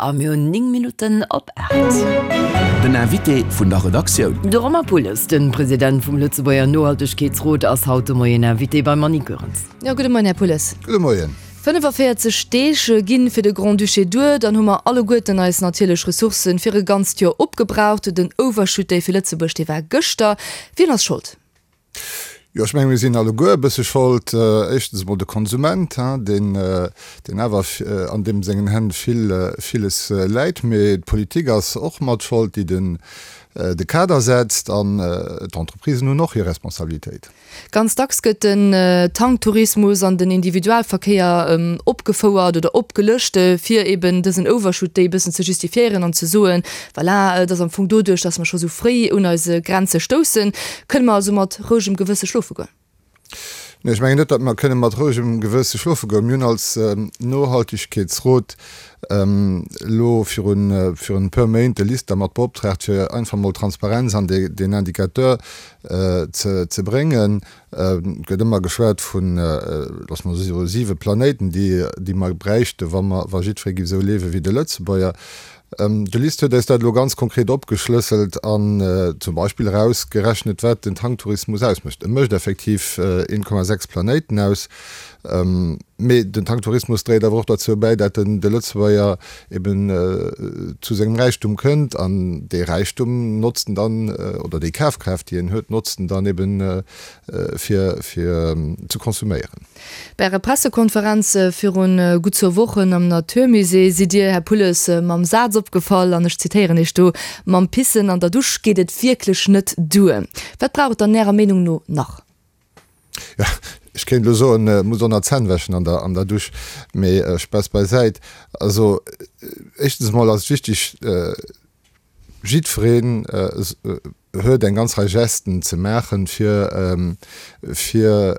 A mir hunn 9 Minutten op 8. Den Invité vun der Redaktioun. De Romain Pulles, de President vum Lëtzebuerger Nohaltegkeetsrot, ass haut de Moien Invité beim Annie Goerens. Jo, gudde Moien, Här Pulles. Gudde Moien. 45 Deeg ginn fir de Grand-Duché duer, dann hu mer alleguerten eis natierlech Ressourcen fir e ganzt Joer opgebraucht. Den Overshoot Day fir Lëtzebuerg, dee war gëschter. Wien ass Schold? Jo, ech menge mir sinn alleguer e bësse Schold. Éischtens emol de Konsument, deen, deen awer an deem sengen Hänn vill, villes läit. Mee d'Politik ass och mat Schold, déi den, de Kader setzt. An d'Entreprisen hunn och hir Responsabilitéit. Ganz dacks gëtt den Tanktourismus an den Individualverkéier opgefouert oder opgelëscht, fir eben dësen Overshoot Day e bëssen ze justifiéieren an ze soen, Voilà, et ass am Fong doduerch, dass mer scho sou fréi un eise Grenze stoussen. Kënne mer also mat rouegem Gewësse schlofe goen? Nee, ech mengen net, datt mer kënne mat rouegem Gewësse schlofe goen. Mir hunn als Nohaltegkeetsrot elo virun virun e puer Méint de LISTER mat beoptraagt, fir einfach mol Transparenz an deen Indicateur ze ze bréngen. Et gëtt ëmmer geschwat vun, loosse mer soe siwe Planéiten, déi déi mer bräichte wa mer wa jiddweree géif esou liewe wéi de Lëtzebuerger. De LIST huet eis dat elo ganz konkret opgeschlësselt an zum Beispill erausgerechnet, wat den Tanktourismus ausmécht. E mécht effektiv 1,6 Planéiten aus. Mee den Tanktourismus dréit awer och derzou bäi, dat de Lëtzebuerger eben zu sengem Räichtum kënnt an dee Räichtum notzt en dann, oder déi Kafkraaft, déi en huet, notzt en dann eben fir ze konsuméieren. Bei Ärer Pressekonferenz virun gutt zwou Wochen am Naturmusée sidd Dir, Här Pulles, mam Saz opgefall, an ech zitéieren Iech do, Mam Pissen an der Dusch geet et wierklech net duer. Wat brauch et dann Ärer Meenung no nach? Jo, ech kéint elo soen, et muss och nach d'Zänn wäschen an der an der Dusch, mee Spaass beisäit. Also éischtens emol ass et wichteg, jiddwereen huet eng ganz Rei Gesten ze maachen, fir fir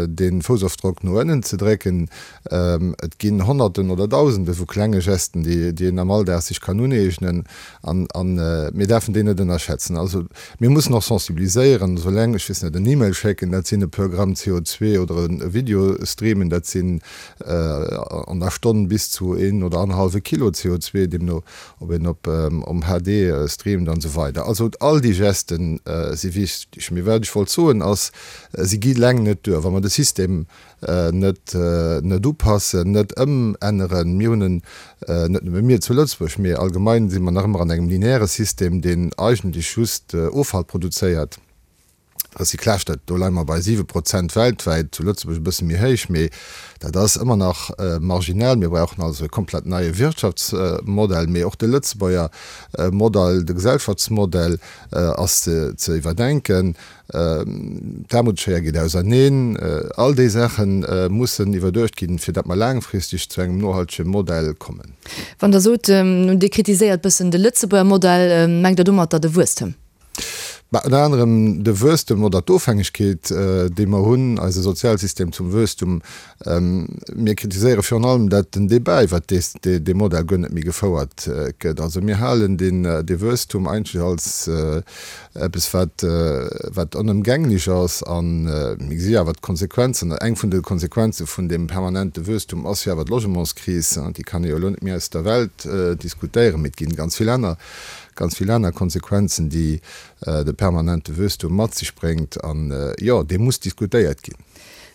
de Foussofdrock no ënnen ze drécken. Et ginn Honnerten oder Dausende vu klenge Gesten, déi déi een am Alldag sech kann uneegnen an an mir däerfen déi net ënnerschätzen. Also mir mussen och sensibiliséieren, also eleng, ech weess net, en E-Mail schécken, dat sinn e puer Gramm CO2 oder e Video streamen, dat sinn an der Stonn bis zu een oder annerhallwe Kilo CO2, deemno ob een op om HD streamt an esou weider. Also all déi Gesten si wichteg. Mee wat ech wollt soen ass, si gi leng net duer, wa mer de System net net upassen, net ëmänneren. Mir hunn en, net nëmme mir zu Lëtzebuerg, mee allgemein si mer nach ëmmer an engem lineaire System, deen eigentlech just Offall produzéiert. Recyclage, dat, do leie mer bei 7 Prozent weltwäit, zu Lëtzebuerg e bësse méi héich, mee dat ass ëmmer nach marginal. Mir brauchen also e komplett neie Wirtschaftsmodell, mee och de Lëtzebuerger Modell, de Gesellschaftsmodell ass ze iwwerdenken. D'Aarmutsschéier geet auserneen. All déi Saache mussen iwwerduecht ginn, fir datt mer laangfristeg zu engem nohaltege Modell kommen. Wann Der sot, Dir kritiséiert bëssen de Lëtzebuerger Modell, mengt Der domatter de Wuesstem? Bah, ënner anerem de Wuesstem oder d'Ofhängegkeet, déi mer hunn, eise Sozialsystem zum Wuesstum. Mir kritiséiere virun allem, dat den Débat iwwert dee Modell guer net méi gefouert gëtt. Also mir halen dee Wuesstum eigentlech als eppes, wat, wat onëmgänglech ass. A mir gesi awer d'Konsequenzen, eng vun de Konsequenze vun deem permanente Wuesstum ass jo awer d'Logementskris. Déi kann ee jo elo net méi aus der Welt diskutéieren, mee et ginn ganz vill aner Ganz vill aner Konsequenzen, déi de permanente Wuesstum mat sech bréngt. An, jo, dee muss diskutéiert ginn.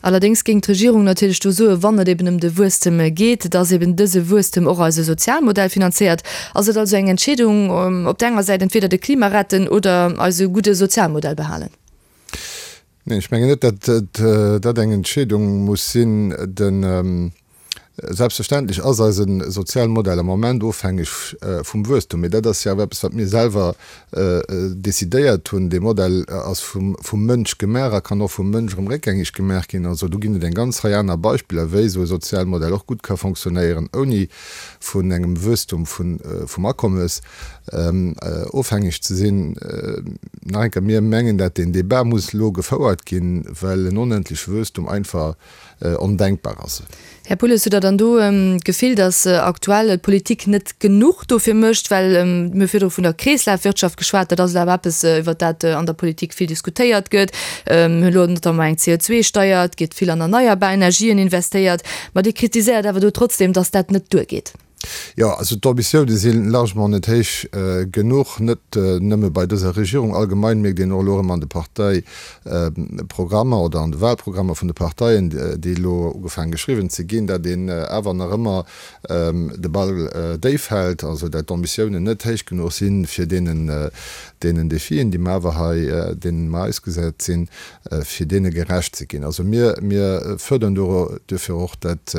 Allerdéngs géing d'Regierung natierlech do soen, wann et eben ëm de Wuesstem geet, dass eben dëse Wuesstem och eise Sozialmodell finanzéiert. Ass et also eng Entscheedung, op der enger Säit entweder de Klima retten oder eise gudde Sozialmodell behalen? Neen, ech mengen net, datt dat eng Entscheedung muss sinn. De Selbstverständlech ass eise Sozialmodell am Moment ofhängeg vum Wuesstum, mee dat ass jo awer eppes, wat mir selwer decidéiert hunn. Dee Modell ass vum Mënsch gemaach a kann och vum Mënsch erëm réckgängeg gemaach ginn. Also do ginn et eng ganz Rei aner Beispiller, wéi esou e Sozialmodell och gutt ka fonctionnéieren, ouni vun engem Wuesstum vum Akommes ofhängeg ze sinn. Nach eng Kéier, mir mengen, dat deen Débat muss elo gefouert ginn, well en onendleche Wuesstum einfach ondenkbar ass. Här Pulles, hutt Der dann do d'Gefill, datt aktuell d'Politik net genuch dofir mécht? Well mir hu virdru vun der Kreeslafwirtschaft geschwat, dat ass awer eppes, iwwert dat an der Politik vill diskutéiert gëtt. Mir hunn elo notamment eng CO2-Steier, et gétt vill an erneierbar Energien investéiert. Ma Dir kritiséiert awer do trotzdem, datt dat net duergeet. Jo, also d'Ambitioune si largement net héich genuch, net nëmme bei dëser Regierung. Allgemein mierkt een och elo erëm an de Parteiprogrammer oder an de Wahlprogrammer vun de Parteien, déi elo ugefaange geschriwwen ze ginn, dat een awer nach ëmmer de Ball déif hält, also dat d'Ambitiounen net héich genuch sinn, fir deenen, deenen Defien, déi mer awer hei, deenen mer ausgesat sinn, fir deene gerecht ze ginn. Also mir, mir fërderen duerfir och, dat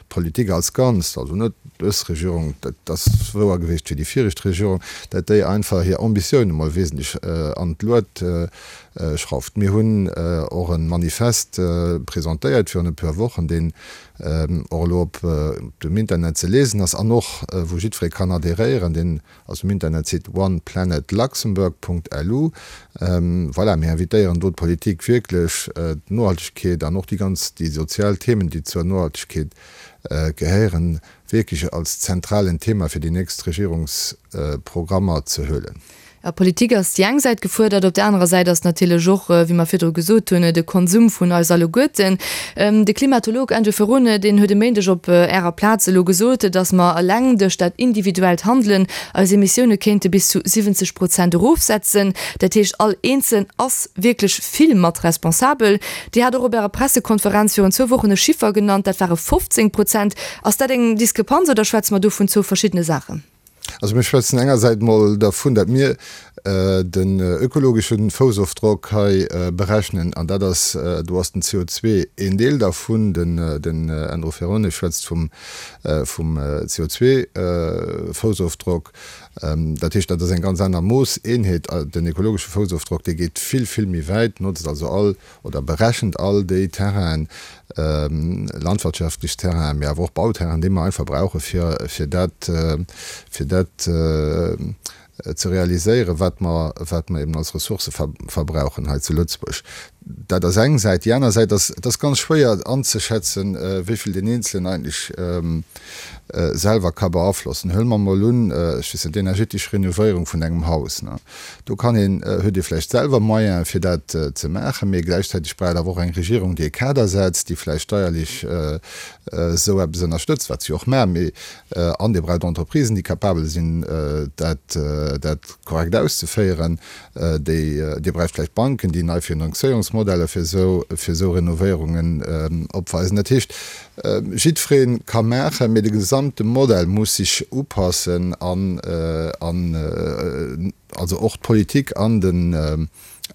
d'Politik als Ganzt, also net dës Regierung, dat ass wouer gewiescht fir déi viregt Regierung, dat déi einfach hir Ambitioune mol wesentlech an d'Luet schrauft. Mir hunn och e Manifest presentéiert virun e puer Wochen, deen och elo op dem Internet ze liesen ass an och wou jiddweree kann adhéréieren, deen Ass um Internetsite oneplanetluxembourg.lu. Voilà, mir invitéieren do d'Politik wierklech d'Nohaltegkeet an och déi ganz, déi sozial Themen, déi zur Nohaltegkeet gehéieren, wierklech als zentralen Thema fir déi nächst Regierungsprogrammer ze huelen. Jo, d'Politik ass déi eng Säit gefuerdert, op där anerer Säit ass natierlech och, wéi mer virdru gesot hunn, de Konsum vun eis alleguerten. De Klimatolog Andrew Ferrone, deen huet e Méindeg op Ärer Plaz elo gesot, datt mer eleng duerch dat individuellt Handelen eis Emissioune kéinte bis zu 70 Prozent erofsetzen. Dat heescht, all Eenzelen ass wierklech vill mat responsabel. Dir hat och op Ärer Pressekonferenz virun zwou Wochen e Chiffer genannt, dat ware 15 Prozent. Ass dat eng Diskrepanz oder schwätze mer do vun zwou verschiddene Saachen? Also mir schwätzen engersäits mol dervun, datt mir den ökologesche Foussofdrock hei berechnen, an dat ass, do ass den CO2 een Deel dervun. Den Andrew Ferrone schwätzt vum CO2-Foussofdrock. Dat heescht, dat ass eng ganz aner Moosseenheet. Den ökologesche Foussofdrock, dee geet vill, vill méi wäit, notzt also all oder berechent all déi Terrainen, landwirtschaftlech Terrainen, mee awer och Bauterrainen, déi mer einfach brauche fir, fir dat, fir dat ze realiséieren, wat mer, wat mer eben als Ressourcë verbrauchen hei zu Lëtzebuerg. Dat ass eng Säit. Déi aner Säit ass, et ass ganz schwéier anzeschätzen, wéi vill deen Eenzelen eigentlech selwer ka beaflossen. Huele mer emol un, ech weess net, d'energetesch Renovéierung vun engem Haus. Do kann een, huet ee vläicht selwer Moyene fir dat ze maachen, mee gläichzäiteg brauch et awer och eng Regierung, déi e Kader setzt, déi vläicht steierlech esou eppes ënnerstëtzt, wat se jo och maachen, mee an Dir braucht Entreprisen, déi capabel sinn, dat dat korrekt auszeféieren, déi, Dir braucht vläicht Banken, déi nei Finanzéierungsmodeller fir esou, fir esou Renovéierungen opweisen. Dat heescht, Jiddweree ka maachen, mee de gesamte Modell muss sech upassen an, an also och d'Politik an den,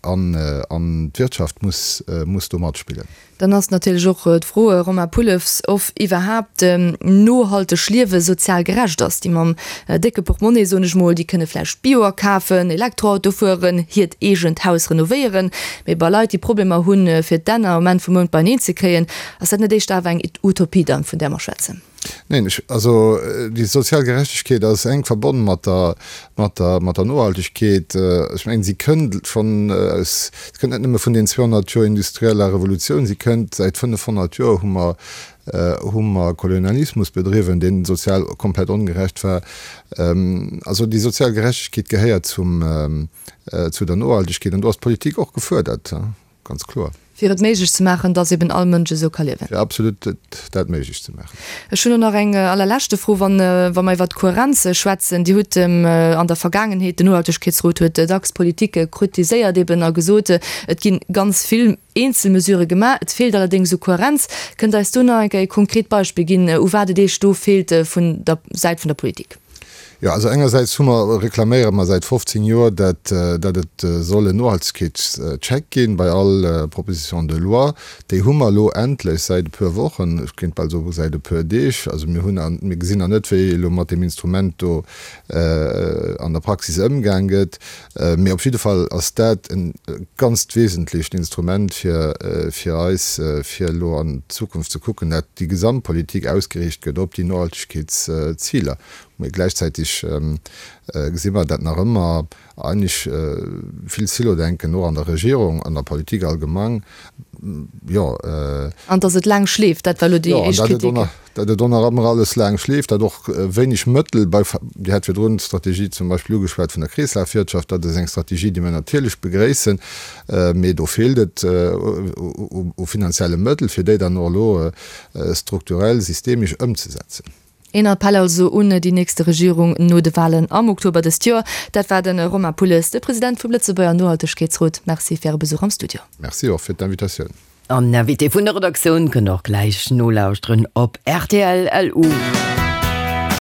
an, an d'Wirtschaft muss, muss do matspillen. Dann ass natierlech och d'Fro, Romain Pullefs, of iwwerhaapt nohalteg Liewe sozial gerecht ass. Déi mam décke Portmonnaie, soen ech mol, déi kënne vläicht Bio akafen, Elektroauto fueren, hiert eegent Haus renovéieren, mee bei Leit, déi Problemer hunn, fir d'Enn am Enn vum Mount beineen ze kréien, Ass dat net éischter awer eng Utopie dann, vun där mer schwätzen? Neen, ech, also déi sozial Gerechtegkeet ass enk verbonn mat der, mat der, mat der Nohaltegkeet. Ech mengen, si kënnt schonn aus, si kënnt net nëmme vun den 200 Joer industrieller Revolutioun, si kënnt säit 500 Joer hu mer, hu mer Kolonialismus bedriwwen, dee sozial komplett ongerecht war. Also déi sozial Gerechtegkeet gehéiert zum, zu der Nohaltegkeet an do ass d'Politik och gefuerdert. Ganz kloer. Fir et méiglech ze maachen, dass eben all Mënsch esou ka liewen. Fir absolut dat méiglech ze maachen. Ech hunn och nach eng allerleschte Fro, wann, wa mer iwwert d'Kohärenz schwätzen. Dir hutt an der Vergaangenheet, den Nohaltegkeetsrot huet dacks d'Politik kritiséiert eben a gesot, et gi ganz vill eenzel Mesurë gemaach, et feelt allerdéngs u Kohärenz. Kënnt Der eis do nach eng Kéier e konkret Beispill ginn, u wat et Iech do feelt vun der Säit vun der Politik? Jo, also engersäits hu mer, reklaméiere mer säit 15 Joer, dat, dat et soll en Nohaltegkeetscheck ginn bei all Proposition de loi. Déi hu mer elo endlech säit e puer Wochen, ech kéint bal soe säit e puer Deeg. Also mir hunn, mir gesinn nach net, wéi elo mat deem Instrument do an der Praxis ëmgaang gëtt, mee op jidde Fall ass dat e ganzt wesentlecht Instrument fir, fir eis, fir elo an d'Zukunft ze kucken, dat déi Gesamtpolitik ausgeriicht gëtt op déi Nohaltegkeetsziler. Mee gläichzäitig gesi mer, dat nach ëmmer eigentlech vill Silodenken och an der Regierung, an der Politik allgemang, jo. An datt et laang schleeft, dat war elo déi éischt Kritik. Jo, an datt et och nach ëmmer alles laang schleeft, datt och wéineg Mëttel bei, Dir hat virdrun d'Strategie zum Beispill ugeschwat vun der Kreeslafwirtschaft, dat ass eng Strategie, déi mir natierlech begréissen, mee do feelt et u finanzielle Mëttel, fir déi dann och elo strukturell, systemesch ëmzesetzen. Een Appell also un déi nächste Regierung no de Walen am Oktober dëst Joer. Dat war de Romain Pulles, de President vum Lëtzebuerger Nohaltegkeetsrot. Merci fir Äre Besuch am Studio. Merci och fir d'Invitatioun. An Invité vun der Redaktioun kënnt och gläich nolauschteren op rtl. LU.